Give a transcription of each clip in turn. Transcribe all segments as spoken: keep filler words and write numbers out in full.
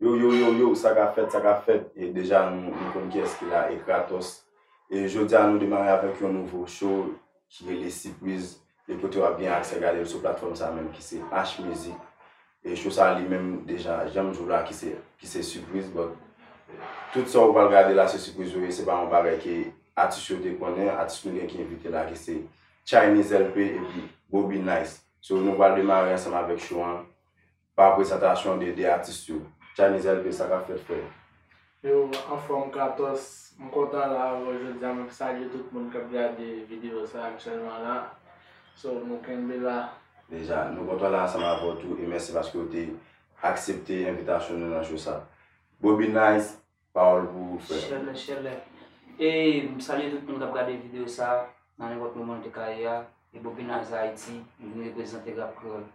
Yo, yo, yo, yo, sa k ap fèt, sa k ap fèt. E deja nou, nou konn kiyès ki la, e Kratos. E jodi a nou demare avèk yon nouvo show ki rele Sipriz. E kote w ap gen aksè gade l sou platfòm sa menm ki se H Music. E show sa li menm deja, jan m di w la, ki se, ki se sipriz, but tout sa w pral gade la se sipriz yo ye, se pa yon bagay ke atis yo te konnen, atis nou gen ki envite la ki se Chinese L P epi Bobby Nice. So nou pral demare ansanm avèk show an pa prezantasyon de de atis yo. Chinese L P, sa k ap fèt, frè? Yo, anfòm Kratos, m kontan la avè w jodi a, m ap salye tout moun k ap gade videyo sa aktyèlman la. So, nou kenbe la. Deja, nou kontan la ansanm avè w tou e mèsi paske w te aksepte envitasyon nou nan show sa. Bobby Nice, pawòl pou ou, frè. Chèlè, chèlè. E m salye tout moun k ap gade videyo sa nan nenpòt moman l te ka ye a. E Bobby Nice Haiti, m vin reprezante rap kreyòl.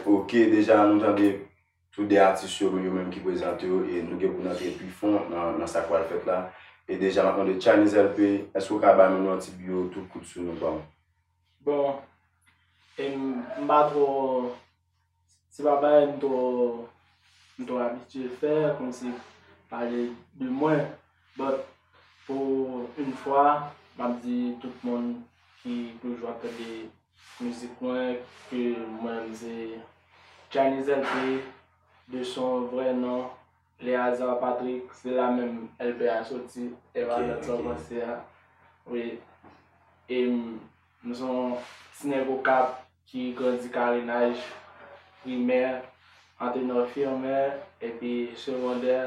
Ok, deja nou tande tou de atis yo, yo menm ki prezante yo, e nou gen pou n antre pi fon nan, nan sa k pral fèt la. E deja, m ap mande Chinese L P, èske w ka bay moun yon ti biwo tou kout sou nou, bro? Bon, e m, m pa twò, se pa bagay m twò, m twò abitye fè, kòmsi pale de mwen, but pou yon fwa, m ap di tout moun ki toujou ap tande mizik mwen, ke mwen menm se Chinese L P, de son vrè non, Léazard Patrick, se la menm L P a soti, e pa lòt sa w panse a. Wi. E m, m se yon ti nèg Okap ki grandi Karenaj, primè, Antenor Firmin, epi segondè,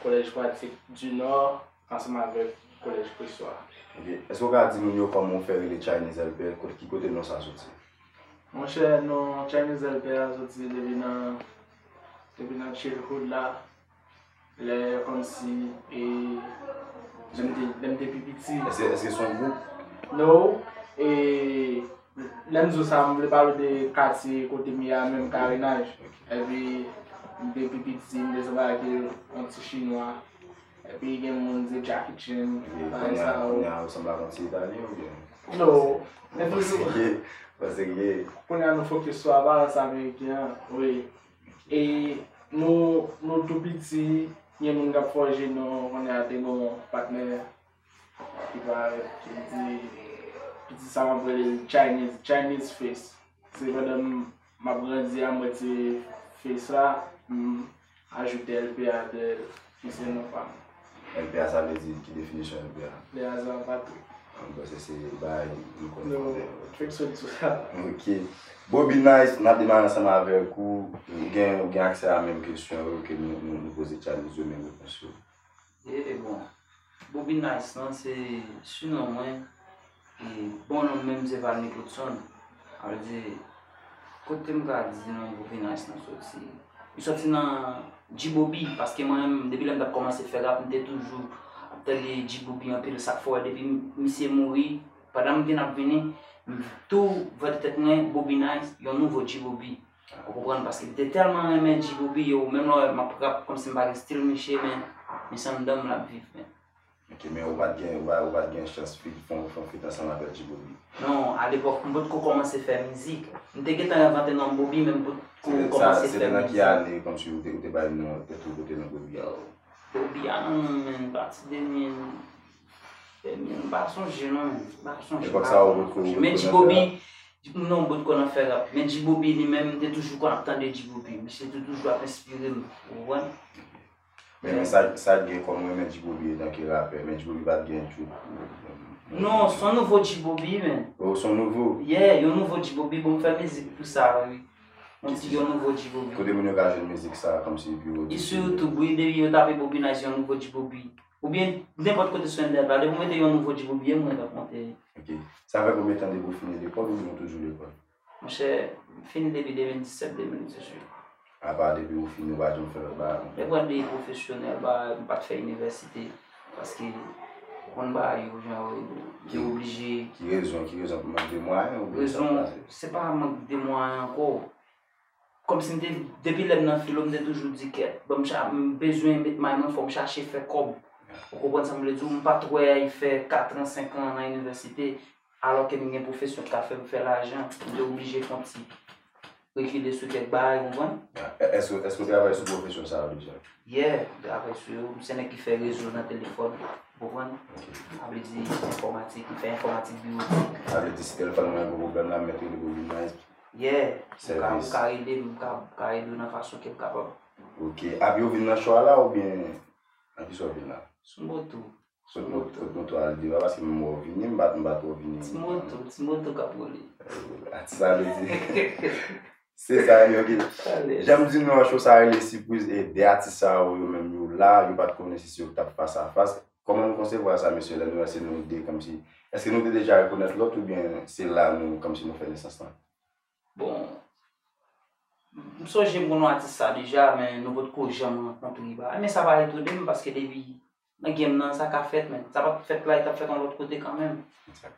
Collège Pratique du Nord, ansanm avèk Collège Pressoir. Ok. Èske w ka di moun yo kòman w fè rele Chinese L P, kot, ki kote non sa soti? Monchè, non Chinese L P a soti depi nan, depi nan childhood la. Lè kòmsi, e, lè m te, lè m te pi piti. Èske, èske se yon gwoup? No. E, lè m di w sa, m vle pale w de katye kote m ye a menm, Karenaj. Epi, m te pi piti, m te sanble ak yon ti chinwa. Epi gen moun di Jackie Chan, bagay sa yo. Kounye a, kounye a, ou sanble ak yon ti Italyen oubyen? No. Men toujou. Pase gen, pase gen. Kounye a, nou fokis sou aparans ameriken an, wi. E nou, nou tou piti, gen moun k ap fòje non, kounye a, te gen yon patnè ki parèt, ki di, piti sa m ap rele l Chinese, Chinese Face. Se pandan m, m ap grandi a, m retire Face la, m ajoute L P a dèyè l, ki se non pa m. L P a, sa vle di, ki definisyon L P a? Léazard Patrick. Mwen panse se bagay nou konnen. Non, fèk sot sou sa. Ok. Bobby Nice, n ap demare ansanm avèk ou. Ou gen, ou gen aksè a menm kesyon yo ke nou, nou, nou poze Chinese yo, menm repons yo. E bon, Bobby Nice lan se sinon mwen. E bon non m menm se Valny Coutson. Sa vle di, kote m ka di non Bobby Nice lan soti? Li soti nan G-Bobby, paske mwen menm, depi lè m t ap kòmanse fè rap, m te toujou ap tande G-Bobby anpil. Sa k fè w wè depi misye mouri, pandan m vin ap vini, m tou vante tèt mwen, Bobby Nice, yon nouvo G-Bobby. Ou konprann? Paske m te tèlman renmen G-Bobby, yo, menm lè w wè m ap rap, kòmsi m pa gen stil misye, men misye anndan m l ap viv, men. Ok, men ou pa t gen, ou pa, ou pa t gen chans feat, fè yon, fè yon feat ansanm avèk G-Bobby? Non, alepòk, m potko kòmanse fè mizik. M te gentan envante non Bobby, men m potko kòmanse fè mizik. Se te nan ki ane, kòmsi ou te, ou te bay non tèt ou, ou te nan Bobby a? Bobby a, non, men, pati de mil, de mil, m pa sonje, non, men, m pa sonje. Epòk sa a, ou potko, ou potko nan fè rap? Men G-Bobby, non, m potko nan fè rap. Men G-Bobby, li menm, m te toujou konn ap tande G-Bobby. Misye te toujou ap enspire m, ou konprann? Men, men sa, sa k gen kòm renmen G-Bobby etanke rapè, men G-Bobby pa t gen tout. Non, se yon nouvo G-Bobby, men. Oh, se yon nouvo? Yeah, yon nouvo G-Bobby, bon, m fè mizik pou sa, wi. Yon ti, yon nouvo G-Bobby. Kote moun yo ka jwenn mizik sa, kòmsi pou yo? Li sou YouTube, wi, depi yo tape Bobby Nice, yon nouvo G-Bobby. Oubyen, nenpòt kote sou entènèt la, depi w mete yon nouvo G-Bobby, e mwen k ap monte. Ok. Sa fè konbyen tan depi w fini lekòl oubyen w toujou lekòl? Monchè, m fini depi de mil disèt, de mil dizuit. Apa depi ou fini ou pa janm fè lòt bagay ankò? Lè pral de pwofesyonèl, ba, m pa t fè inivèsite, paske ou konn bagay yo jan yo ye, m te oblije. Ki rezon, ki rezon, mank de mwayen oubyen sa k pase? Rezon, se pa mank de mwayen ankò. Kòmsi m te, depi lè m nan filo, m te toujou di kèt, bon, m cha-, m bezwen met may mwen, fò m chache fè kòb. Ou konprann sa m vle di w? M pa t wè fè katran, senkan an nan inivèsite, alò ke m gen pwofesyon k ka fè m fè lajan, m te oblije fè yon ti rekile sou kèk bagay, ou konprann? Èske, èske w travay sou pwofesyon sa yo deja? Yeah, m travay sou yo. M se nèg ki fè rezo nan telefòn, ou konprann? Sa vle di enfòmatik, m fè enfòmatik biwotik. Sa vle di si telefòn mwen gen pwoblèm la, m mèt rele pou vin nan. Yeah, m ka, m ka rele, m ka, m ka ede w nan fason ke m kapab. Ok. Ap yo vin nan cho a la oubyen nan ki cho w vin la? Sou moto. Sot moto, sot moto al deyò a, paske m wè w vini, m pa, m pa twò vini. Ti moto, ti moto k ap woule. Atis sa vle di. Se sa, ok. Jan m di nou an, cho sa rele sipriz, e de atis sa yo, yo menm yo la, yo pa t konnen si se yo k t ap fas a fas. Kòman nou konsevwa sa, mesye, lè nou wè se nou de, kòmsi, èske nou te deja rekonèt lòt oubyen se la nou, kòmsi nou fè nesans lan? Bon, m sonje m konn wè atis sa deja, men nou potko janm rankontre, bagay. Men sa pa etone m, paske depi nan game nan, sa ka fèt, men sa pa t fèt la, li t ap fèt yon lòt kote kanmenm.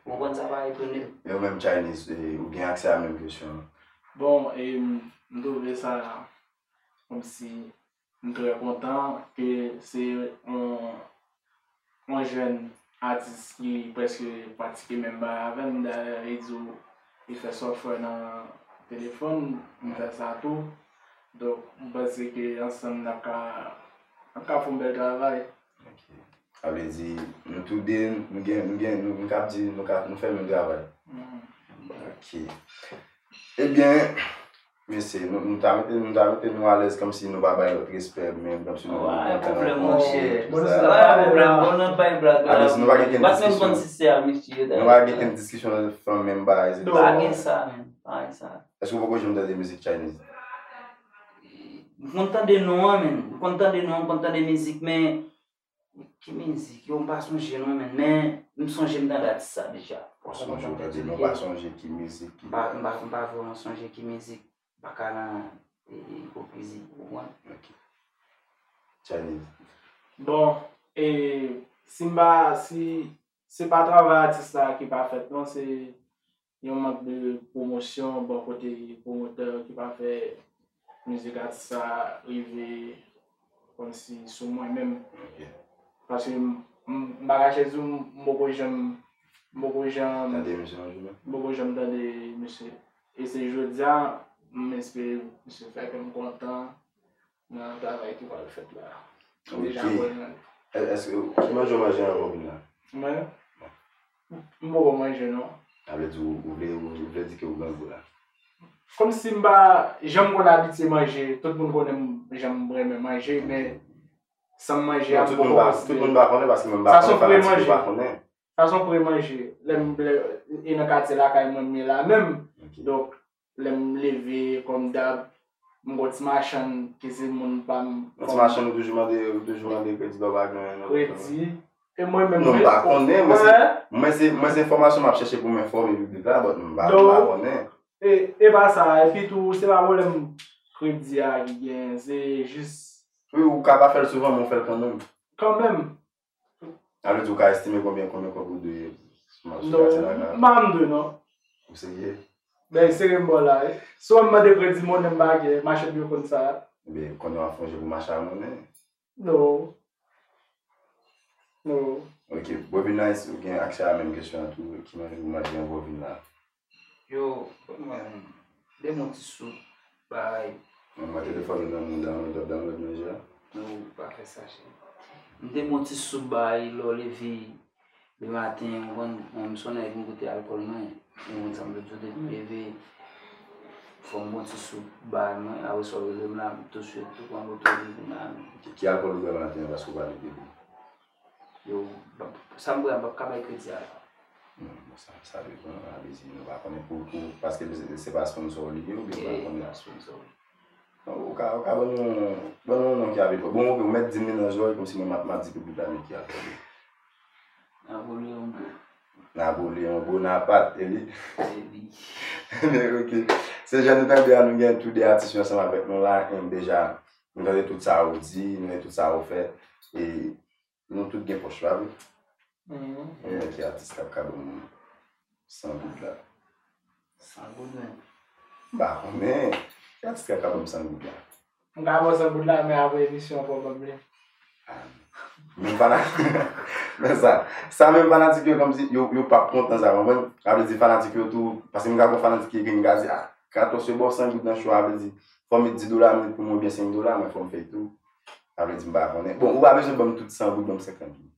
Ou konprann, sa pa etone m. E ou menm, Chinese, e, ou gen aksè a menm kesyon an? Bon, e, m twouve sa kòmsi m trè kontan ke se yon, yon jèn atis ki prèske pratike menm bagay avè m. Dayè, li di w li fè software nan telefòn, m fè sa tou. Donk, m panse ke ansanm n ap ka, n ap ka fè yon bèl travay. Ok. Sa vle di, nou tou de, nou gen, nou gen, nou, nou kab di, nou ka, nou fè menm travay. Ok. Ebyen, mesye, nou, nou ta mete, nou ta mete nou alèz kòmsi nou pa bay lòt respè, menm kòmsi nou pa kontan ankò, tout sa. Pa gen pwoblèm, monchè. Pa gen pwoblèm, bon, n ap bay blag la. Alèz, nou pa gen kenn diskisyon. M pa t menm konn si se a mesye yo, dayè. Nou pa gen kenn diskisyon nan fanm menm bagay, se pa gen sa, menm. Pa gen sa. Èske w poko janm tande mizik Chinese? M konn tande non an, menm. M konn tande non an, m konn tande mizik, men ki mizik? Yo, m pa sonje non, menm. Men m sonje m tande atis sa deja. Ou sonje w tande, men w pa sonje ki mizik ki. M pa, m pa, m pa vrèman sonje ki mizik. M pa ka nan, e, e, ipokrizi, ou konprann? Ok. Chinese. Bon, e, si m pa, si se pa travay atis la ki pa fèt, non, se yon mank de pwomosyon bò kote pwomotè yo ki pa fè mizik atis sa rive kòmsi sou mwen menm. Ok. Paske m, m, m pa kache di w, m poko janm, m poko janm, tande misye yon jou menm? M poko janm tande misye. E se jodi a, m espere misye fè kè m kontan nan travay ki pral fèt la. Ok. Deja bon nan li. È-, èske, ki manje w manje anvan w vin la? Mwen? M poko manje, non. Sa vle di ou, ou vle, ou, ou vle di ke ou grangou la? Kòmsi m pa janm konn abitye manje, tout moun konnen m, jan m renmen manje, men san m manje a, m poko konsidere. Non, tout moun pa, tout moun pa konnen, paske mwen m pa konnen, fanatik yo pa konnen. Sa se yon pre manje. Lè m, lè, e nan katye lakay mwen m ye la menm. Ok. Donk, lè m leve, kòm dab, m gon ti machann ki se moun pa m. Yon ti machann ou toujou mande, ou toujou mande kredi lè w pa gen anyen nan konprann. Kredi. E mwen menm, non, m pa konnen, mwen se, mwen se, mwen se enfòmasyon m ap chèche pou m enfòme piblik la, but m pa, m pa konnen. E, e pa sa, epi tou, se pa pwoblèm kredi a ki gen, se jis. Wi, ou ka pa fè l souvan, men w fè l kanmenm. Kanmenm. Sa vle di ou ka estime konbyen, konbyen kòb ou dwe sou ma-, sou katye la? Non, m pa m dwe, non. Ou serye? Ben, serye m ba w la, wi. Si w mande kredi monnen m pa gen, machann yo konn sa. Ebyen, konnen w ap fè yon je pou mache a monnen? Non. Non. Ok, Bobby Nice, ou gen aksè a menm kesyon an tou, ki manje ou manje anvan w vin la? Yo, ban mwen, ban mwen yon ti soup, bay. Mwen, mwen telefòn ou nan men w, download, ap download manje a. Non, pa fè sa, cheri. M te bon ti soup, bay, lè w leve, le maten, ou konn, mwen, m se yon nèg m goute alkòl, mwen. Ou konn sa m vle di w, depi m leve, fò m bon ti soup, bay, mwen, apre sa w rele m la, m touswit, tou pran moto, vin la. Ki, ki alkòl ou bwè maten an, paske ou pa leve byen? Yo, sa m bwè a, m p ap ka bay kredi a la. Non, bon, sa, sa depann, sa vle di nou pa konnen pou, pou, paske se, se pa sponsor li ye, oubyen nou pa konnen. E, pa sponsor. Non, ou ka, ou ka ban nou, ban nou yon non ki ap ede. Bon, ok, ou mèt di m li nan zòrèy, kòmsi mwen m ap, m ap di piblik la men ki ap tande. Napoleon Bo. Napoleon Bonaparte, e li? E li. Men, ok. Se jan nou tande a, nou gen tou de atis yo ansanm avèk nou la, e deja, nou tande tout sa ou di, nou tande tout sa ou fè. E Nou tout gen pòch, pa vre? Mhm. Konbyen ki atis k ap ka ban m san goud la? San goud menm? M pa konnen. Ki atis k ap ka ban m san goud la? M ka ba w san goud la, men apre emisyon an, fò w ban m li. Ah, menm fanatik, men sa, sa menm fanatik yo kòmsi, yo, yo p ap kontan sa, konprann? Sa vle di fanatik yo tou, paske m ka gon fanatik ki ekri m ka di, ah, katòz yo ba w san goud nan cho a, vle di, fò m met di dola minit pou mwen oubyen senk dola, mwen fò m fè tou. Sa vle di m pa konnen. Bon, ou pa bezwen ban m tout san goud, ban m senkant goud.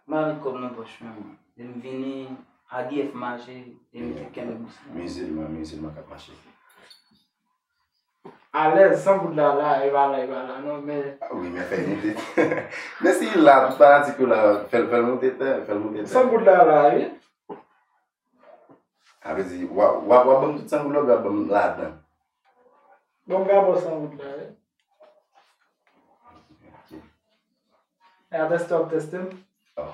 M pa met kòb nan pòch mwen, mwen. Lè m vini, A D F mache, e m te kenbe bous mwen. Mizilman, mizilman k ap mache. Alèz, san goud la, la, e pa la, e pa la, non, men. Ah wi, men fè l moute. Men si l la, tout fanatik yo la, fè l, fè l moute tè, fè l moute tè. San goud la, la, wi. Sa vle di, w ap, w ap, w ap ban m tout san goud la, w ap ban m ladan. Bon, m ka ba w san goud la, wi. Ok. E a tèste, w ap tèste m? Oh.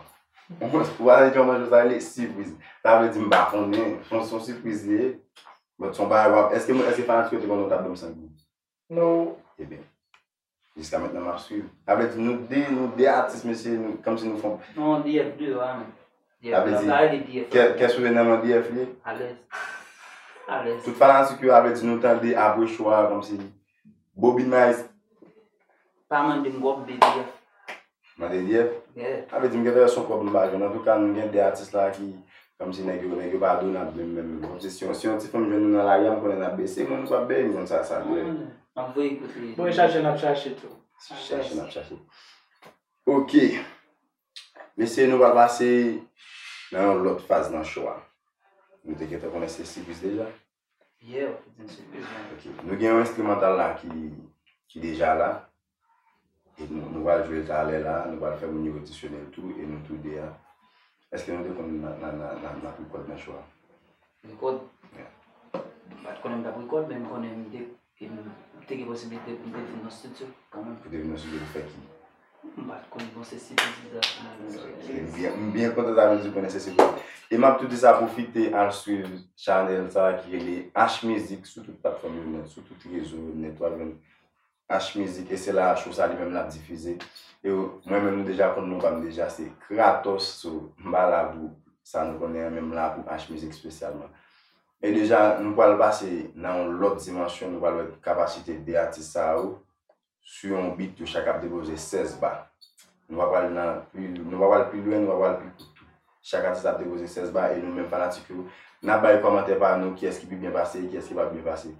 Ou wè jan manje sa rele sipriz. Sa vle di m pa konnen. Se yon, se yon sipriz li ye. But se yon bagay w ap, èske, èske fanatik yo te konnen w t ap ban m san goud? No. Ebyen, jiska mentnan m ap swiv. Sa vle di nou de, nou de atis, mesye, nou, kòmsi nou fon. Non, D F de, a, men. Sa vle di, kè, kè sou nan men D F li ye. Alèz. Alèz. Tout fanatik yo, sa vle di nou tande apre cho a, kòmsi Bobby Nice. Pa mande m kòb, D F. Mande D F? Yeah. Sa vle di m gentan wè se yon kòb m pa jwenn. Antouka, nou gen de atis la ki, kòmsi nèg yo, nèg yo pa donab menm, menm. Kòmsi si yon, si yon ti fanm jwenn nou nan lari a, m konnen n ap bese, mwen m p ap bese, m konn sa, sa dwe. M ap voye kote. Bon, e chache, n ap chache tou. Chache, n ap chache. Ok. Mesye, nou pral pase nan yon lòt faz nan cho a. Nou te gentan konnen se sipriz deja. Yeah, w te di m sipriz, man. Ok. Nou gen yon enstrimantal la ki, ki deja la. E nou, nou pral jwe l talè la, nou pral fè moun yo odisyonnen l tou, e nou tou de a. Èske nou te konn n a, n a, n a, n a, n a rekòd nan cho a? Rekòd? Yeah. M pa t konnen m t ap rekòd, men m konnen m te, m te gen posiblite pou m te vin nan estidyo kanmenm. Pou te vin nan estidyo pou fè ki? M pa t konn bon se sipriz li t ap fè. Ok, m byen, m byen kontan sa vle di w konnen se sipriz. E m ap tou di sa, pwofite al swiv chanèl sa ki rele H Mizik sou tout platfòm yo nèt, sou tout rezo yo nèt, w ap jwenn H Mizik, e se la cho sa li menm l ap difize. E mwen menm nou deja konn non pa m deja se Kratos, so m pa la pou sa nou konnen an, men m la pou H Mizik espesyalman. E deja, nou pral pase nan yon lòt dimansyon, nou pral wè kapasite de atis sa yo, sou yon beat, yo chak ap depoze sèz ba. Nou pa pral nan pli, nou pa pral pi lwen, nou pa pral pi kout tou. Chak atis ap depoze sèz ba, e nou menm fanatik yo, n ap bay kòmantè pa nou, kiyès ki pi byen pase, kiyès ki pa byen pase.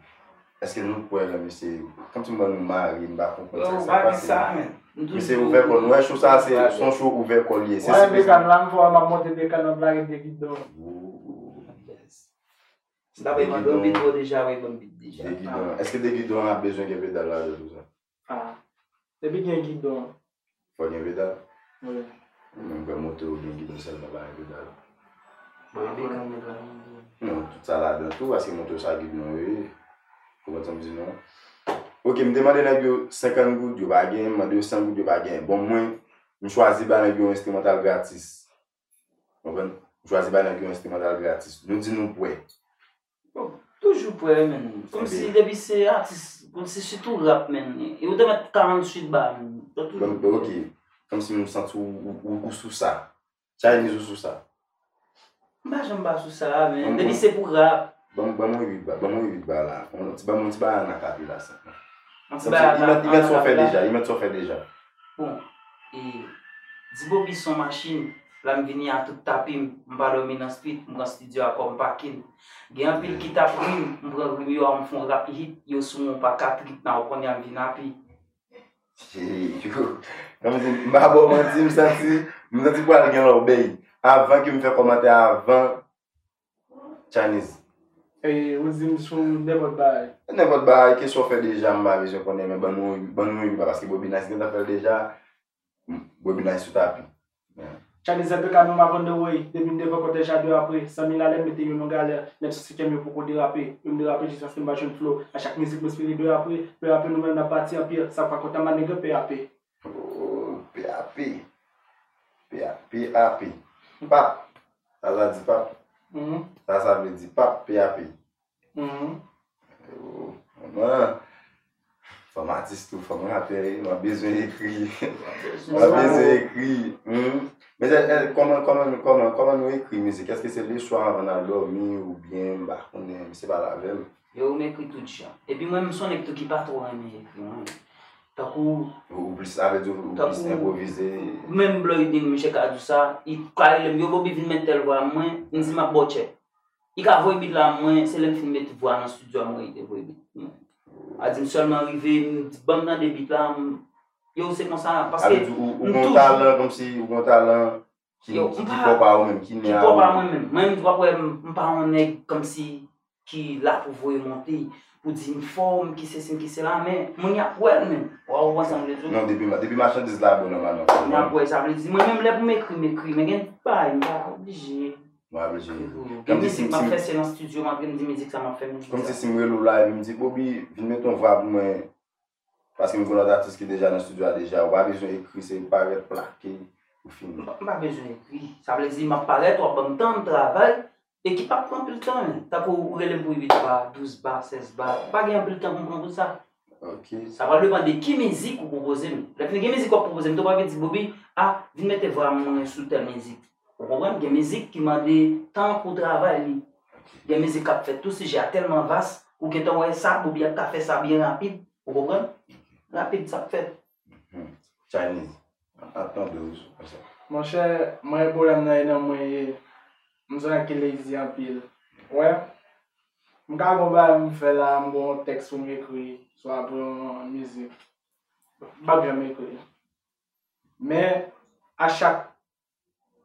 Èske nou kwè nan misye? Kòmsi m wè nou mare, m pa konprann sa k ap pase. Yo, pa gen sa, men. Misye ouvè kò l, nou wè cho sa, se, se yon cho ouvè kò l ye. Se sipriz. Wè, Bekan la, m fò m ap monte Bekan, m ap lage de gidon. Oh. Yes. Si ta bay mande yon bit, bon, deja, wi, ban m bit deja. De gidon. Èske de gidon an ap bezwen gen pedal ladan tou sa? Ah. Depi gen gidon. Fò gen pedal? Wi. Mwen kwè moto yo gen gidon sèlman, pa gen pedal. Bon, e Bekan nèg la menm. Non, tout sa ladan tou, paske moto sa gidon yo ye. Ou konprann sa m di non? Ok, m te mande nèg yo senkant goud, yo pa gen, m mande yo san goud, yo pa gen. Bon, mwen, m chwazi ba nèg yo yon enstrimantal gratis. Konprann? M chwazi ba nèg yo enstrimantal gratis. Nou di nou prè. Bon, toujou prè, men. Kòmsi depi se atis, kòmsi sitou rap, men. E ou te mèt karanntuit ba, men. Ou toujou prè. Bon, ok. Kòmsi m santi ou, ou, ou, ou sou sa. Chinese ou sou sa. M pa janm pa sou sa, men. Depi se pou rap. Ban m, ban m uit ba, ban m uit ba la. Yon ti, ban m yon ti bagay an akapela senpman. Yon ti bagay an akapela. Li mèt, li mèt sa w fè deja, li mèt sa w fè deja. Bon, e, di Bobby son machin, la m vini a tout tapi m, m pa dòmi nan street, m pran studio a kòm pakin. Gen anpil ki t ap ri m, m pran ri m yo a, m fè yon rap hit, yo sou mwen pa ka trip, nan w konnen a m vin api. Yo, kòmsi, m pa ba w manti, m santi, m santi pral gen lòbèy. Avan ke m fè kòmantè avan, Chinese. E, ou di m sou nenpòt bagay. Nenpòt bagay, kesyon w fè deja, m pa bezwen konnen, men ban nou, ban nou yon ba, paske Bobby Nice gentan fè l deja. Bobby Nice sou tapi. Yeah. Chinese L P K, nou m ap on the way. Depi m devan kòtèj la de apre. San mil alè m mete yo nan galè. Menm si sityèm yo poko derape. Yo m derape jiskaske m pa jwenn flow. A chak mizik m espere de apre. Pe apre nou menm n ap pati an pye. Sa pa kontan ma nèg pe ape. Oh, pe ape. Pe ape. Pap. Sa sa di pap? Mhm. Sa sa vle di pap, pe ape. Mhm. Oh, mwen, fò m atis tou, fò m rapè, mwen bezwen ekri. Mwen bezwen ekri. Hmm. Men, eh, eh, kòman, kòman, kòman, kòman nou ekri mizik? Èske se leswa anvan n al dòmi oubyen, m pa konnen, se pale avè m. Yo, m ekri tout jan. Epi mwen, m se yon nèg tou ki pa twò renmen ekri, mwen. Tankou. Ou, ou plis, sa vle di ou, ou plis enpwovize. Menm Bloydin, misye ka di w sa, li ka rele m, yo, Bobby vin met tèl vwa mwen, m di m ap ba w tchèk. Li ka voye beat la, mwen, se lè m fin met vwa nan studio a, mwen, li te voye beat mwen. A di m sèlman rive, m di, "Ban m tande beat la," m, yo, se konsa, paske m toujou. Sa vle di ou, ou gen yon talan, kòmsi ou gen yon talan ki, ki pwòp a ou menm, ki nen a ou. Ki pwòp a mwen menm. Mwen menm, w ap wè, m, m pa yon nèg kòmsi ki la pou voye monte, pou di m fò, m ki sesi, m ki sela, men moun y ap wè l menm. W ap konprann sa m vle di w? Non, depi, depi machandiz la bon, nòmalman. Moun y ap wè, sa vle di, mwen menm, lè pou m ekri, m ekri, men gen bagay, m pa oblije. M pa oblije ekri pou yo. Gen mizik m ap fè, se nan studio, m ap vin di mizik sa m ap fè, mizik sa. Kòmsi si m rele w la, epi m di, "Bobby, vin met yon vwa pou mwen." Paske m gen lòt atis ki deja nan studio a deja. Ou pa bezwen ekri, se parèt, plake, ou fini. M pa, m pa bezwen ekri. Sa vle di, m ap parèt, w ap ban m tan, m travay. E ki p ap pran anpil tan, men. Tankou ou rele m pou uit ba, douz ba, sèz ba. Pa gen anpil tan pou m pran pou sa. Ok. Sa pral depann de ki mizik ou pwopoze m. Lè fini gen mizik w ap pwopoze m, tou pa vin di, "Bobby, a, vin mete vwa mwen sou tèl mizik." Ou konprann? Gen mizik ki mande tan pou travay li. Gen mizik k ap fèt tou, sijè a tèlman vas, ou gentan wè sa, Bobby ap ka fè sa byen rapid. Ou konprann? Rapid, sa k fèt. Mhm. Chinese, ap tande w sou sa. Monchè, mwen, pwoblèm nan e nan mwen ye. M se yon nèg ki lazy anpil. Wè, m ka gon bagay m fè la, m gon tèks pou m ekri, swa pou yon mizik. M p ap janm ekri. Men, a chak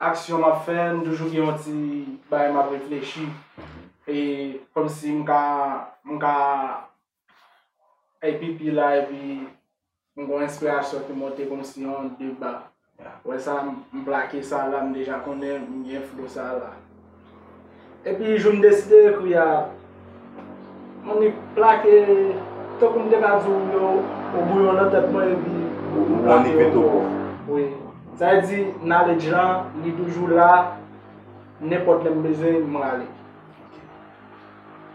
aksyon m ap fè, m toujou gen yon ti bagay m ap reflechi. E kòmsi m ka, m ka, epi pi la, epi m gon enspirasyon ki monte kòmsi yon deba. Wè sa, m, m plake sa la, m deja konnen m gen flo sa la. Epi jou m deside ekri a, m annik plake, tankou m te ka di w yo, ou bouyon nan tèt mwen, epi ou, ou annik mete w. Wi. Sa vle di, knowledge lan, li toujou la, nenpòt lè m bezwen, m rale. Ok.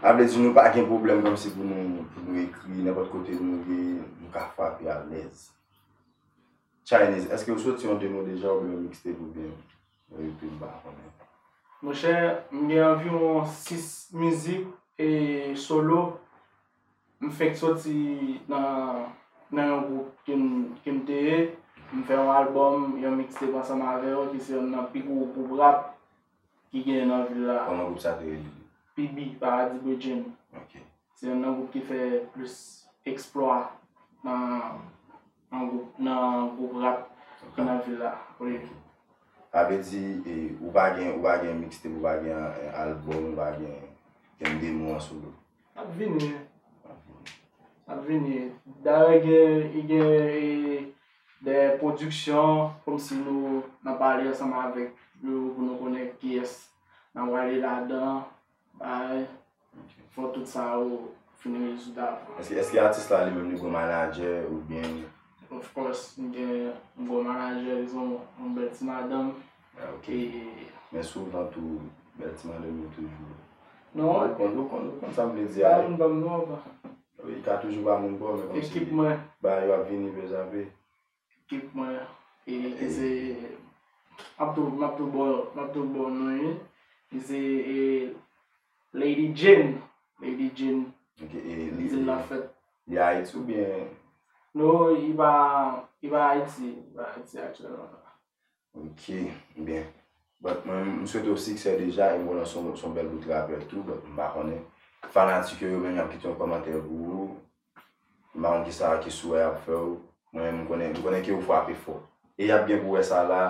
Sa vle di, nou pa gen pwoblèm kòmsi pou nou, pou nou ekri, nenpòt kote nou ye, nou ka frape alèz. Chinese, èske ou soti yon demo deja oubyen yon mixtape oubyen yon E P, m pa konnen? Monchè, m gen anviwon sis mizik e solo. M fenk soti nan, nan yon gwoup ke m, ke m te ye. M fè yon albòm, yon mixtape ansanm avè yo, ki se youn nan pi gwo gwoup rap ki genyen nan vil la. Kòman gwoup sa te rele? P B, Paradis Bredjen. Ok. Se youn nan gwoup ki fè plis eksplwa nan, nan gwoup, nan gwoup rap ki nan vil la. Wi. Sa vle di, e, ou pa gen, ou pa gen mixtape, ou pa gen, e, albòm, ou pa gen, gen demo an solo? L ap vini. L ap vini. L ap vini. Dayè, gen, gen, e, de pwodiksyon, kòmsi nou, n ap pale ansanm avèk yo pou nou konnen kiyès n ap rale ladan. Bay, fò tout sa yo fin rezoud avan. Èske, èske atis la li menm li gon manadjè oubyen? Of course, m gen, m gon manadjè, li se yon, yon bèl ti madanm. Ah, ok. E men souvan tou, bèl ti madanm yo toujou. Non. Ou konn, ou konn, ou konn sa m vle di a, wi. Ba moun ban m non, pa. Wi, li ka toujou ba moun bon, men kòmsi ekip mwen, ba yo ap vini pe zape. Ekip mwen, e, ki se, m ap tou, m ap tou ba w, m ap tou ba w non li. Li se, e, Lady Jane. Lady Jane. Ok, e li, li nan fèt. Li Ayiti oubyen? Non, li pa, li pa Ayiti, li pa Ayiti aktyèlman. Ok, byen. But mwen, m swete w siksè deja, e m konnen se yon, se yon bèl bout rapè tou, but m pa konnen. Fanatik yo, yo menm, y ap kite yon kòmantè pou ou. M pa konn kisa ki sou wè y ap fè w. Mwen menm, m konnen, m konnen ke ou frape fò. E y ap gen pou wè sa la,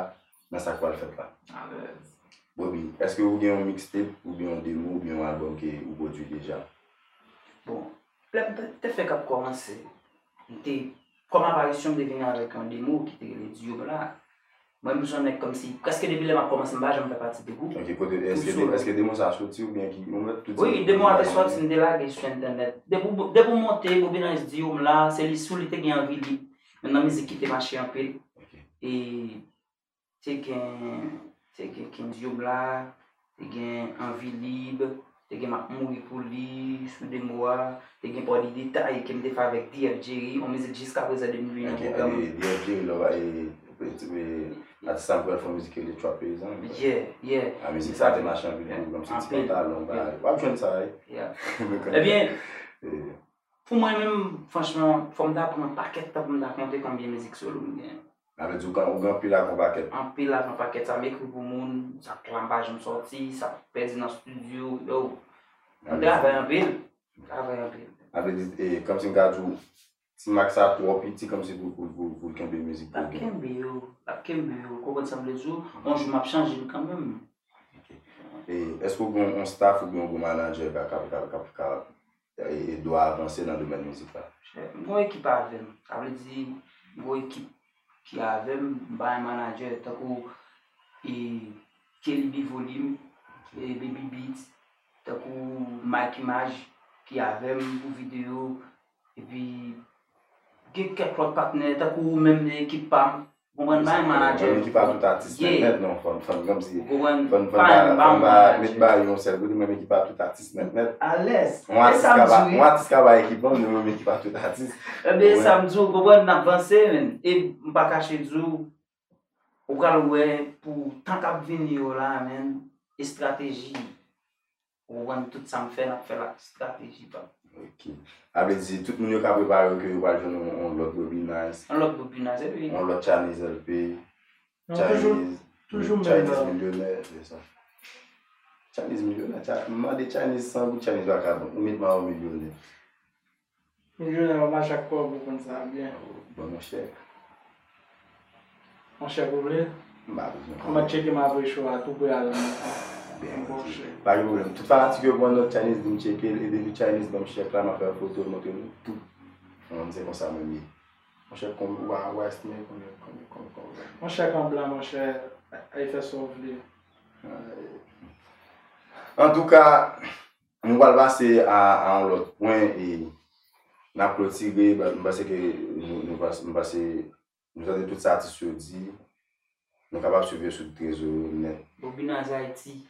nan sa k pral fèt la. Alèz. Bobby, èske ou gen yon mixtape, oubyen yon demo, oubyen yon albòm ke ou pwodui deja? Bon, lè m te, te fèk ap kòmanse, m te, kòm aparisyon, m te vin avèk yon demo ki te rele Diyom la. Mwen, m se yon nèg kòmsi, prèske depi lè m ap kòmanse, m pa janm fè pati de gwoup. Ok, kote, èske de-, èske demo sa a soti oubyen ki, ou mèt tout... Wi, demo a te soti, m te lage sou entènèt. Depi w, depi w monte Bobby Nice Diyom la, se li sou li te gen Anvi Lib. Youn nan mizik ki te mache anpil. Ok. E te gen, te gen King Diyom la, te gen Anvi Lib, te gen M ap mouri pou li, sou demo a, te gen Pòdi Detay ke m te fè avèk D F Jerry, yon mizik jiskaprezan depi li nan pwogram. D F Jerry, lè w pa, e, e, atis sa m pral fè yon mizik ki rele Trap Peyizan. Yeah, yeah. A, mizik sa te mache anpil pou kòmsi ti pantalon, bagay. W ap jwenn sa, wi. Yeah. Ebyen, pou mwen menm, franchman, fò m ta pran pakèt tan pou m ta konte konbyen mizik solo m gen. Sa vle di ou gen, ou gen anpil ak yon pakèt. Anpil ak yon pakèt, sa m ekri pou moun, sa plan pa janm sòti, sa pèdi nan estidyo, yo. M travay anpil, m travay anpil. Sa vle di, e, kòmsi m ka di w, ti mak sa twò piti kòmsi pou, pou, pou, pou l kenbe mizik pou l gen. L ap kenbe yo, l ap kenbe yo, ou konprann sa m vle di w? Yon jou m ap chanje l kanmenm. Ok. E, èske w gen yon staff oubyen yon bon manadjè k ap, k ap, k ap, k ap, k ap, e, ede w avanse nan domèn mizik la? M gen yon ekip avè m. Sa vle di, m gen yon ekip ki avè m, m pa gen manadjè, tankou, e, Kelly B Volume, e, Baby Beats, tankou Mike Image ki avè m pou videyo, epi gen kèk lòt patnè, tankou ou menm nan ekip pa m, ou konprann, m pa gen manadjè. Menm ekip a tout atis nèt nèt, non, fò n, fò n kòmsi, ou konprann, fò n, fò n pa, fò n pa met bagay yo yon sèl kote, menm ekip a tout atis nèt nèt. Alèz. Yon atis ka ba, yon atis ka ba ekip an, men menm ekip a tout atis. Ebyen, sa m di w, ou konprann, n ap vanse, men, e m pa kache di w, ou pral wè pou tan k ap vini yo la, men, estrateji. Ou konprann, tout sa m fè, n ap fè l ak estrateji pa m. Ok. Sa vle di, tout moun yo ka prepare yo ke yo pral jwenn yon, yon lòt Bobby Nice. Yon lòt Bobby Nice, epi yon lòt Chinese L P. Non, toujou, Chinese, toujou menm Chinese nan milyonè, se sa. Chinese milyonè, Chi-, m mande Chinese san goud, Chinese vakabon. Ou met mwen yon milyonè. Milyonè, w ap mache ak kòb, ou konn sa byen. Bon, monchè. Yon chèk ou vle? M pa bezwen konnen. M ap tcheke m apre show a, tou pre a la. Byen, m bon, chèk. Pa gen pwoblèm. Tout fanatik yo pran nòt, Chinese di m tcheke l, e depi Chinese ban m chèk la, m ap fè foto, montre nou tout. Mwen, se konsa menm ye. Monchè, konbyen, w a, w a estime konbyen, konbyen, konbyen, konbyen? Yon chèk an blan, monchè, al fè sa w vle. Antouka, nou pral pase a, a yon lòt pwen, e n ap klotire, m panse ke nou, nou pas-, m panse nou tande tout sa atis yo di, nou kapab swiv yo sou tout rezo yo nèt. Bobby Nice Haiti.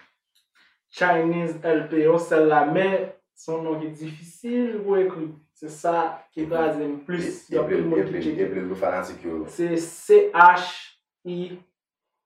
Chinese L P, yon sèl la, men se yon non ki difisil pou ekri. Se sa ki kraze m plis. Gen anpil moun ki tcheke. Epi pou fanatik yo. Se C H I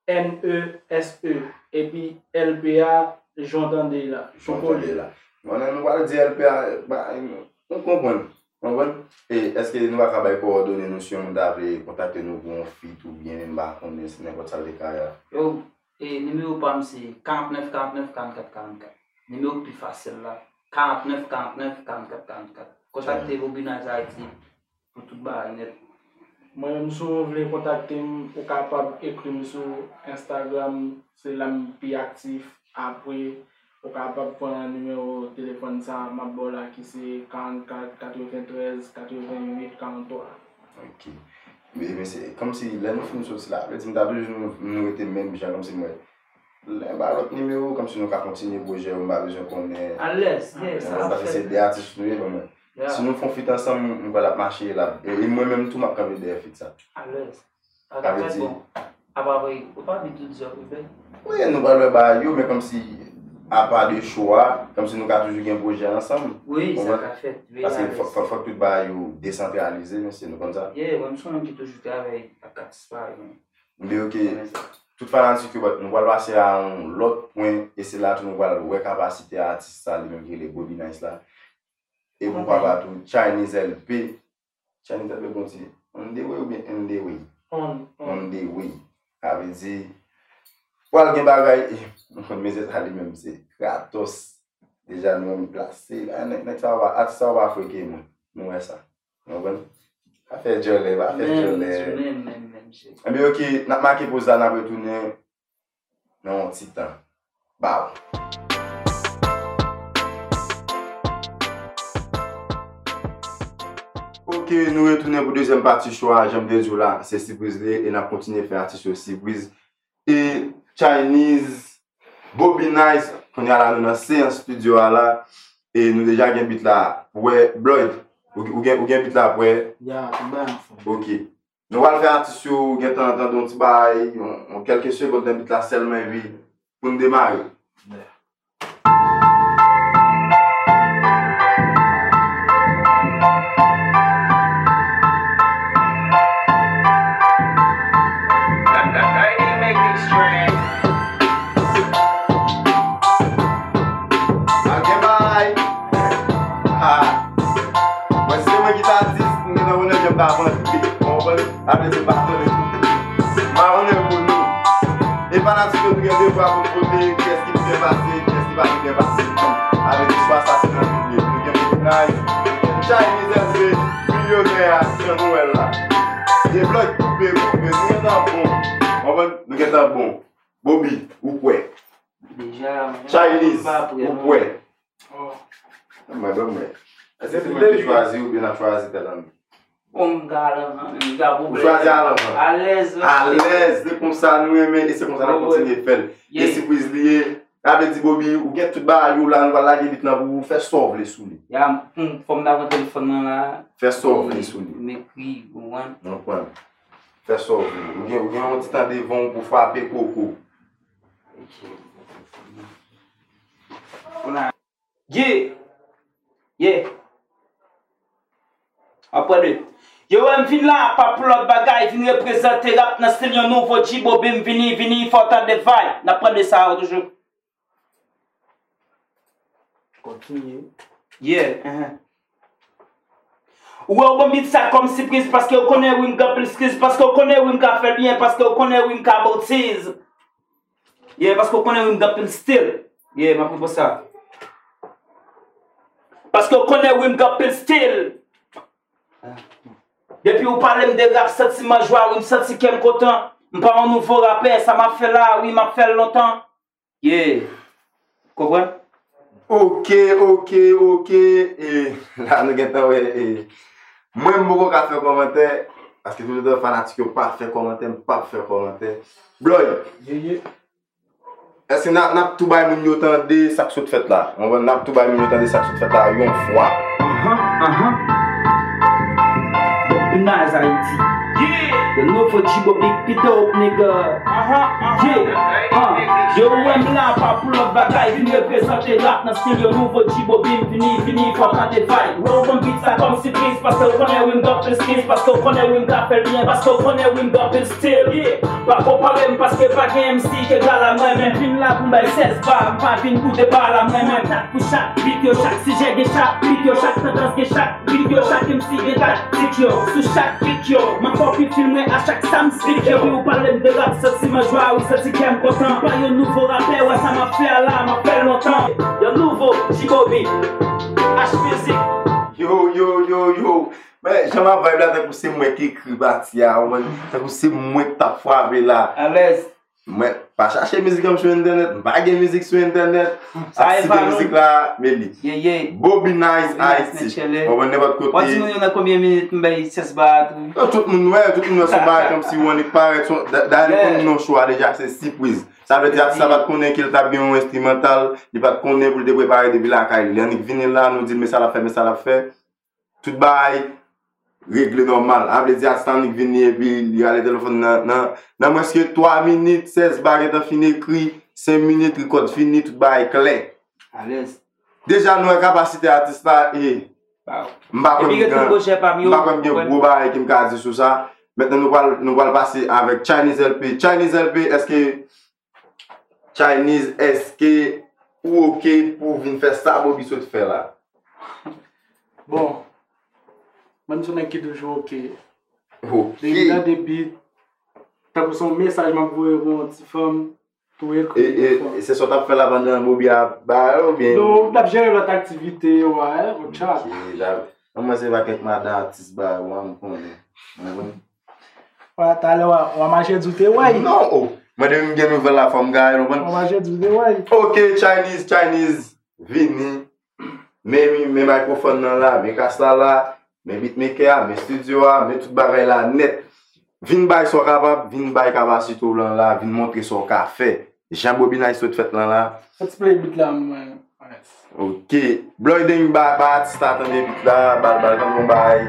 N E S E. Epi L P a, jan w tande la. Jan w tande la. Bon, nou pral di L P a, ba, nou konprann. Konprann? E èske nou pa ka bay kowòdone nou si yon moun ta vle kontakte nou pou yon feat oubyen m pa konnen se nenpòt sa l te ka ye a? Yo, e nimewo pa m se karant nèf karant nèf karant kat karant kat. Nimewo k pi fasil la, karant nèf karant nèf karant kat karant kat. Kontakte Bobby Nice Haiti pou tout bagay nèt. Mwen menm, si w vle kontakte m, ou kapab ekri m sou Instagram, se la m pi aktif. Apre, ou kapab pran nimewo telefòn sa a m ap ba w la, ki se karannkat katreventrèz katrevenwit karanntwa. Ok. Men, men se kòmsi lè nou fin soti la, vle di m ta toujou nou, nou rete menm jan, kòmsi mwen, lè m ba lòt nimewo, kòmsi nou ka kontinye pwojè yo, m pa bezwen konnen. Alèz, yeah, sa ap fèt. Paske se de atis nou ye, ban mwen. Yeah. Si nou fè yon feat ansanm, m kwè l ap mache, l ap, e, e mwen menm tou, m ap kanpe dèyè feat sa. Alèz. Sa ka fèt, bon. Apa vre, ou pa di tout zòt, ou fè? Wi, nou pral wè bagay yo, men kòmsi, apa de show a, kòmsi nou ka toujou gen pwojè ansanm. Wi, sa ka fèt. Paske fòk, fòk, fòk tout bagay yo desantralize, mesye, nou konn sa. Yeah, mwen, m se yon moun ki toujou travay ak atis parèy mwen. Men ok, tout fanatik yo, nou pral pase a yon lòt pwen, e se la tou nou pral wè kapasite atis sa, li menm ki rele Bobby Nice la. E pou papa tou, Chinese L P. Chinese L P, bon, se on the way oubyen in the way? On, on. On the way. Sa vle di, pral gen bagay, e, mezye sa li menm, se Kratos. Deja nou menm plase, la, nèg, nèg sa yo pa, atis sa yo pa freke mwen. Nou wè sa. Nou konprann? Pa fè djòlè, pa fè djòlè. Menm, menm, menm, menm, cheri. Enben, ok, n ap make poz la, n ap retounen nan yon ti tan. Baw. Ok, nou retounen pou dezyèm pati show a, jan m te di w la, se sipriz li ye, e n ap kontinye fè atis yo sipriz. E Chinese, Bobby Nice, kounye a la nou nan seyans estidyo a la, e nou deja gen beat la prè. Bloyd, ou, ou gen, ou gen beat la prè? Ya, tout bagay anfòm. Ok. Nou pral fè atis yo gentan tande yon ti bagay, yon, yon kèlke segond nan beat la sèlman, epi pou n demare. Mwen se mwen ki ta di, m gen nan mwen nan janm ta vann. Ou konprann? Apre se pa tande tou. Gen de vwa pou vote, kiyès ki byen pase, kiyès ki pa byen pase. Avèk istwa sa se nan tout liv. Nou gen Big Nice, nou gen Chinese L P, milyonè a, Jan Nwèl la. Deblòk koupe, koupe, nou gentan bon. Konprann? Nou gentan bon. Bobby, ou kwè? Deja, Chinese, ou kwè? Mwen, ban mwen. Èske se mwen ki chwazi oubyen n ap chwazi tèt an nou? Bon, m ka al anvan, men m ka... Ou chwazi al anvan? Alèz. Alèz, se konsa nou renmen e se konsa n ap kontinye fè l. E sipriz li ye. Sa vle di, Bobby, ou gen tout bagay ou la, nou pral lage beat lan pou ou, fè sa w vle sou li. Ya, m, fò m ta pran telefòn nan la. Fè sa w vle sou li. M ekri, ou konprann? Ou konprann. Fè sa w vle. Ou gen, ou gen yon ti tan devan w pou frape koko. Kounye a, yeah! Yeah! Apre de. Yo wè m vin la, pa pou lòt bagay, vin reprezante rap nan stil yon nouvo G-Bobby, m vini, vini, fò w tande vibe. N ap pran de sa yo toujou. Kontinye. Yeah, uh-huh. Ou wè, ou ban m beat sa kòm sipriz, paske ou konnen wi m gen anpil skills, paske ou konnen wi m ka fè l byen, paske ou konnen wi m ka boutiz. Yeah, paske ou konnen wi m gen anpil stil. Yeah, m ap reprann sa. Paske ou konnen wi m gen anpil stil. Depi ou pale m de rap, santiman jwa, wi m santi kè m kontan. M pa yon nouvo rapè, sa m ap fè la, wi m ap fè l lontan. Yeah. Konprann? Ok, ok, ok. E la nou gentan wè, e, mwen m poko ka fè kòmantè, paske touletan fanatik yo pa fè kòmantè, m p ap fè kòmantè. Bloy, èske n ap, n ap tou bay moun yo tande sa k sot fèt la? Ou konprann? N ap tou bay moun yo tande sa k sot fèt la yon fwa. Anhan, anhan. Bobby Nice Haiti. Yeah. The nouveau G-Bobby, beat it up, nigga. Anhan, anhan. Yeah. Uh. Yo wè m la, pa pou lòt bagay, vin reprezante rap nan stil yo nouvo G-Bobby, m vini, vini, fò w tande vibe. Wè w ban m beat sa kòm sipriz, paske w konnen wi m gen anpil skills, paske w konnen wi m ka fè l byen, paske w konnen wi m gen anpil stil. Yeah. Pa konpare m, paske pa gen M C ki egal a mwen, men vin la pou m bay sèz ba, m pa vin pou deba la, mwen menm. Pou chak beat yo, chak sijè gen chak beat yo, chak tandans gen chak beat yo, chak M C gen taktik yo. Sou chak beat yo, m ap fè w pi fil mwen a chak sa m spit yo. Depi ou pale m de rap, santiman jwa, wi santi kè m kontan. Pa yon nouvo rapè, wè sa m ap fè a la, m ap fè l lontan. Yon nouvo G-Bobby, H Music. Yo, yo, yo, yo. Men, jan m ap vibe la, tankou se mwen ki ekri pati a, ou konprann? Tankou se mwen k t ap frape la. Alèz. Mwen pa chache mizik an m sou entènèt, m pa gen mizik sou entènèt. Sa e pa nou. Mizik la, men li. Yeah, yeah. Bobby Nice Haiti. Ou konprann, nenpòt kote. W ap di moun yo nan konbyen minit m bay sèz ba a tou? Non, tout moun wè, tout moun wè se yon bagay kòmsi ou annik parèt. Dayè nou konn non show a deja, se sipriz. Sa vle di atis la pa t konnen ke l t ap gen yon enstrimantal, li pa t konnen pou l te prepare depi lakay li. Li annik vini la, nou di l men sa l ap fè, men sa l ap fè. Tout bagay regle nòmal. A vle di atis la annik vini epi li rale telefòn nan, nan, nan mwens ke twa minit, sèz ba gentan fin ekri, senk minit, rikòd fini, tout bagay klè. Alèz. Deja nou wè kapasite atis la e m pa kwè m gen, m pa kwè m gen gwo bagay ke m ka di sou sa. Mentnan nou pral, nou pral pase avèk Chinese L P. Chinese L P, èske Chinese, èske ou oke pou w vin fè sa Bobby sot fè la? Bon, mwen se yon nèg ki toujou oke. Oke. Depi nan debi, tankou se yon mesaj m ap voye pou yon ti fanm, tou ekri. E, e, e se sa w t ap fè la pandan Bobby ap ba yo, oubyen? Non, m t ap jere lòt aktivite yo a, yon chat. Ok, la, mwen se pa kèk madan atis ba yo a, m konnen. Mwen konnen. Wè, talè w a, w a mache di w te wè. Non, o. Mwen depi m gen nouvèl la fò m gaye l, ou konprann? W a mache di w te wè. Ok, Chinese, Chinese, vini. Men, men mikrofòn nan la, men kas la la, men beatmaker a, men studio a, men tout bagay la nèt. Vin bay sa w kapab, vin bay kapasite w lan la, vin montre sa w ka fè. Jan Bobby Nice sot fèt lan la. Fè ti play beat la mwen. Ok. Bloy Deng ba, ba atis la tande beat la, ba l, ba l tande yon bagay.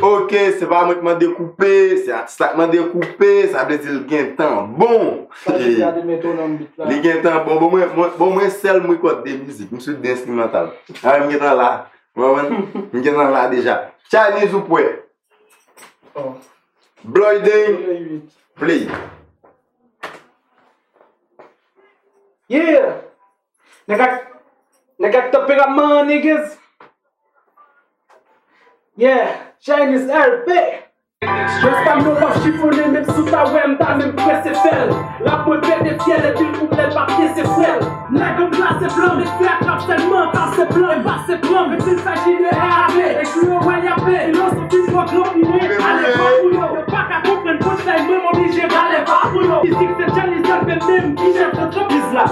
Ok, se pa mwen k mande koupe, se atis la k mande koupe, sa vle di l gentan bon. Li gentan bon, bon mwen, mwen, bon mwen sèl m rekòd de mizik, m sou de enstrimantal. A, m gentan la, w konprann? M gentan la deja. Chinese ou prè? Oh. Bloy Deng, play. Yeah! Nèg ak, nèg ak tanperaman, niggas. Yeah, Chinese L P. Rès pa m non w ap chifonnen, menm si w ta wè m ta menm prese fè l. Rap mwen pete fyèl, epi l kouplè l pa pyese frè l. Nèg an glase blan, met fè a trap sèlman, kase blan, e pase blan, menm si l sajine R A P, e kou yo wè y ape, filozofi twò gran pou mwen, ale pa pou yo, yo pa ka konprann punchline mwen, m oblije rale pa pou yo. Fizik se Chinese L P menm ki chèf antrepriz la.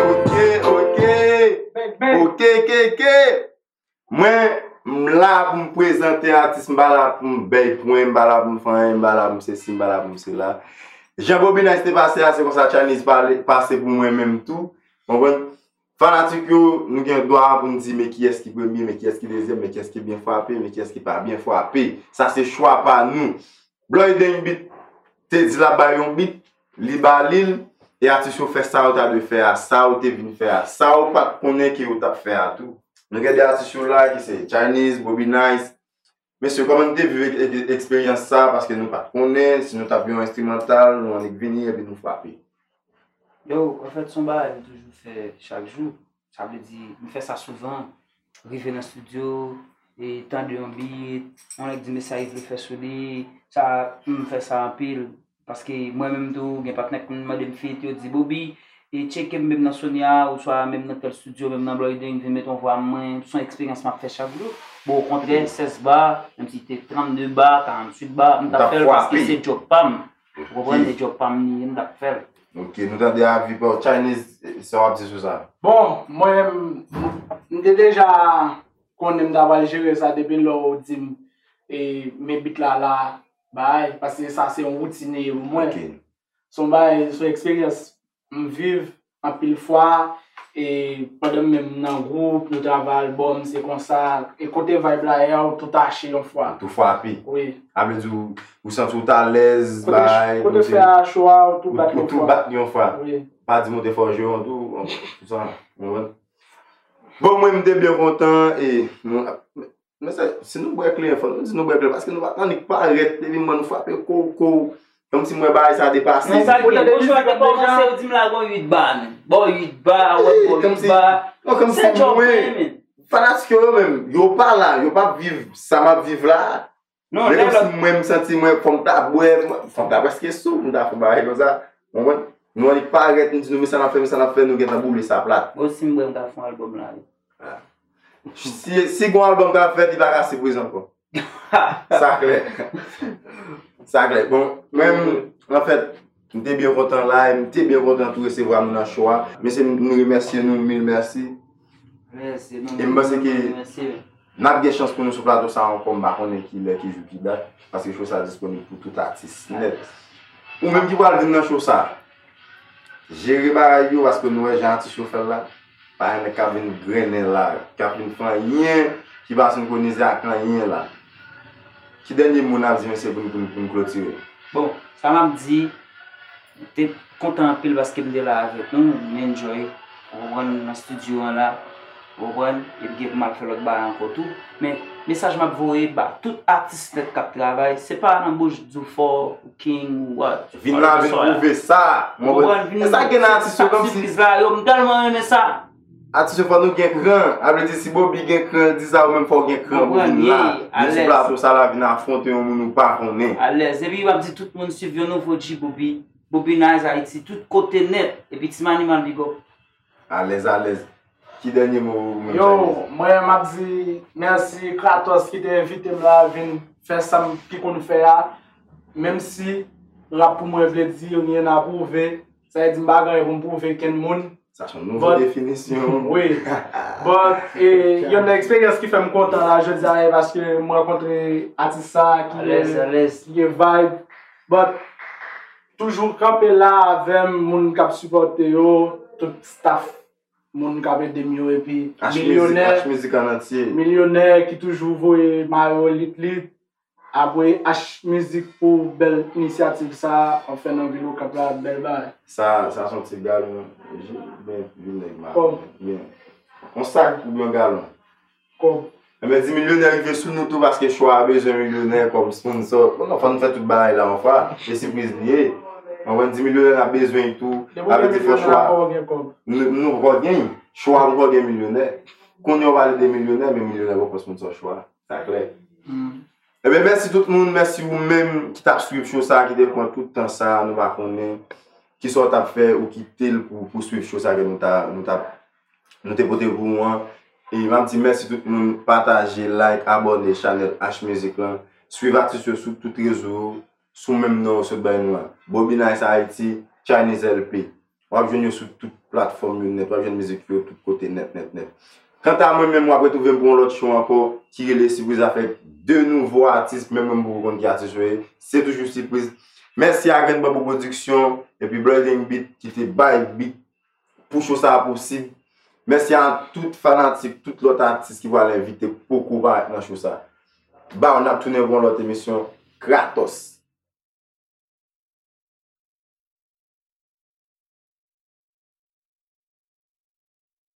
Ok, ok. Bang, bang. Ok, K K. Mwen, m la pou m prezante atis, m pa la pou m bèy pwen, m pa la pou m fè anyen, m pa la pou m sesi, m pa la pou m sela. Jan Bobby Nice te pase a, se konsa Chinese pale, pase pou mwen menm tou. Konprann? Fanatik yo, nou gen dwa pou n di, men kiyès ki premye, men kiyès ki dezyèm, men kiyès ki byen frape, men kiyès ki pa byen frape. Sa se chwa pa nou. Bloy Deng Beat te di l ap bay yon beat, li ba li l, e atis yo fè sa yo ta dwe fè a, sa yo te vin fè a, sa yo pa t konnen ke yo t ap fè a tou. Nou gen de atis yo la ki se Chinese, Bobby Nice. Mesye, kòman nou te viv ek-, ek-, eksperyans sa a? Paske nou pa t konnen, si nou t ap yon enstrimantal, nou annik vini epi nou frape. Yo, anfèt, se yon bagay m toujou fè chak jou. Sa vle di, m fè sa souvan. Rive nan estidyo, e tande yon beat, yon nèg di mesaj li vle fè sou li, sa, m fè sa anpil. Paske mwen menm tou, gen patnè k konn mande m feat, yo di, Bobby, e tcheke m menm nan Sony a, oswa menm nan tèl estidyo, menm nan Bloy Deng, vin met yon vwa mwen, se yon eksperyans m ap fè chak jou. Bon, okontrè, sèz ba, menm si te trannde ba, karanntuit ba, m t ap fè l paske se djòb pa m. Ou konprann? Se djòb pa m li ye, m t ap fè l. Ok, nou tande avi pa w. Chinese, sa w ap di sou sa? Bon, mwen, m, m te deja konnen m ta pral jere sa depi lè w di m, e, men beat la la, bay, paske sa se yon woutin li ye pou mwen. Ok. Se yon bagay, se yon eksperyans m viv anpil fwa, e pandan m menm nan gwoup, nou travay albòm, se konsa, e kote vibe la ye a, ou tou tache yon fwa. Ou tou frape. Wi. Sa vle di ou, ou santi w t alèz, bay, kote fè a cho a, ou tou bat yon fwa. Ou tou bat yon fwa. Wi. Pa di m ou te fè w jwe yon tou, tout sa, ou konprann? Bon, mwen, m te byen kontan, e, nou, Men se, si nou bwè kleren, fò nou di nou bwè kleren, paske nou pa t annik parèt, depi m wè nou frape kow, kow, kòmsi m wè bagay sa depase. Men sa gen, bon, jwè te kòmanse, yo di m lage yon uit ba, men. Bon, uit ba, wè, bon, uit ba. Non, kòmsi mwen, fanatik yo, yo menm, yo pa la, yo p ap viv sa m ap viv la. Non, men kòmsi mwen, m santi mwen, fò m ta bwè, fò m ta prèske sou, m ta fè bagay konsa. Ou konprann? Nou annik parèt, nou di nou, men sa n ap fè, men sa n ap fè, nou gentan boule sa plat. Bon, si m bwè, m ta fè yon albòm la, wi. Si, si gon albòm k ap fèt, li pa ka sipriz ankò. Sa klè. Sa klè. Bon, mwen, anfèt, m te byen kontan la, e m te byen kontan tou resevwa nou nan show a. Mesye, m, nou remèsye nou, mil mèsi. Mèsi, nou, e m panse ke n ap gen chans pou nou sou plato sa ankò, m pa konnen ki lè, ki jou, ki dat, paske show sa disponib pou tout atis nèt. Ou menm ki pral vin nan show sa, jere bagay yo, paske nou wè jan atis yo fè l la. Pa gen nèg k ap vin grennen la, k ap vin fè anyen ki pa senkwonize ak anyen la. Ki dènye mo n ap di mesye pou n, pou n, pou n klotire? Bon, sa m ap di, m te kontan anpil paske m te la avèk nou, m enjoy, ou konprann, nan estidyo an la, ou konprann, epi gen pou m al fè lòt bagay ankò tou. Men, mesaj m ap voye ba tout atis nèt k ap travay, se pa nan bouch di w fò, ou king, ou what. Vin la, vin pwouve sa. Ou konprann, vin. E sa gen nan atis yo, kòmsi. Sipriz la, yo, m tèlman renmen sa. Atis yo, fò nou gen kran. A vle di, si Bobby gen kran, di sa, ou menm fò w gen kran pou vin la. Vin sou plato sa la, vin afwonte yon moun ou pa konnen. Alèz. Epi m ap di tout moun swiv yon nouvo G Bobby. Bobby Nice Haiti, tout kote nèt. Epi Team Animal, big up. Alèz, alèz. Ki dènye mo ou menm, Chinese? Yo, mwen, m ap di mèsi Kratos ki te envite m la vin fè sa m ki konn fè a. Menm si rap pou mwen vle di rien à prouver, sa vle di m pa gen anyen pou m pwouve kenn moun. Sa se yon nouvo definisyon. Wi. But, e, youn nan eksperyans ki fè m kontan la jodi a, e paske m rankontre atis sa ki, ki gen vibe. But, toujou kanpe la avè m, moun k ap sipòte yo, tout staff, moun k ap ede m yo, epi milyonè, H Music an antye, milyonè ki toujou voye mayo lit lit. Apre H Music pou bèl inisyativ sa, anfen nan vil Okap la, bèl bagay. Sa, sa se yon ti galon, byen, vin nèg ma. Kòb. Byen. Yon sak oubyen yon galon? Kòb. Enben, Dimilyonè rive sou nou tou paske Chwa a bezwen Milyonè kòm sponsò. Bon, non, fò n fè tout bagay la yon fwa. E sipriz li ye. Konprann, Dimilyonè n ap bezwen l tou. Sa vle di fò Chwa. Nou, nou poko gen. Chwa poko gen Milyonè. Kounye a w pale de Milyonè, men Milyonè poko sponsò Chwa. Sa klè. Ebyen, mèsi tout moun, mèsi ou menm ki t ap swiv show sa, ki te pran tout tan sa, nou pa konnen kisa w t ap fè ou kite l pou, pou swiv show sa ke nou ta, nou t ap, nou te pote pou ou an. E m ap di mèsi tout moun, pataje, like, abòne chanèl H Music lan, swiv atis yo sou tout rezo yo, sou menm non yo sot bay nou an. Bobby Nice Haiti, Chinese L P. W ap jwenn yo sou tout platfòm yo nèt, w ap jwenn mizik yo tout kote nèt, nèt, nèt. Kanta mwen menm, w ap retwouve m pou yon lòt show ankò ki rele Sipriz avèk de nouvo atis, menm mwen m poko konn ki atis yo ye. Se toujou Sipriz. Mèsi a Grenn Banbou Production epi Blooding Beat ki te bay beat pou show sa a posib. Mèsi a tout fanatik, tout lòt atis ki pral envite poko parèt nan show sa a. Baww, n ap tounen pou yon lòt emisyon. Kratos!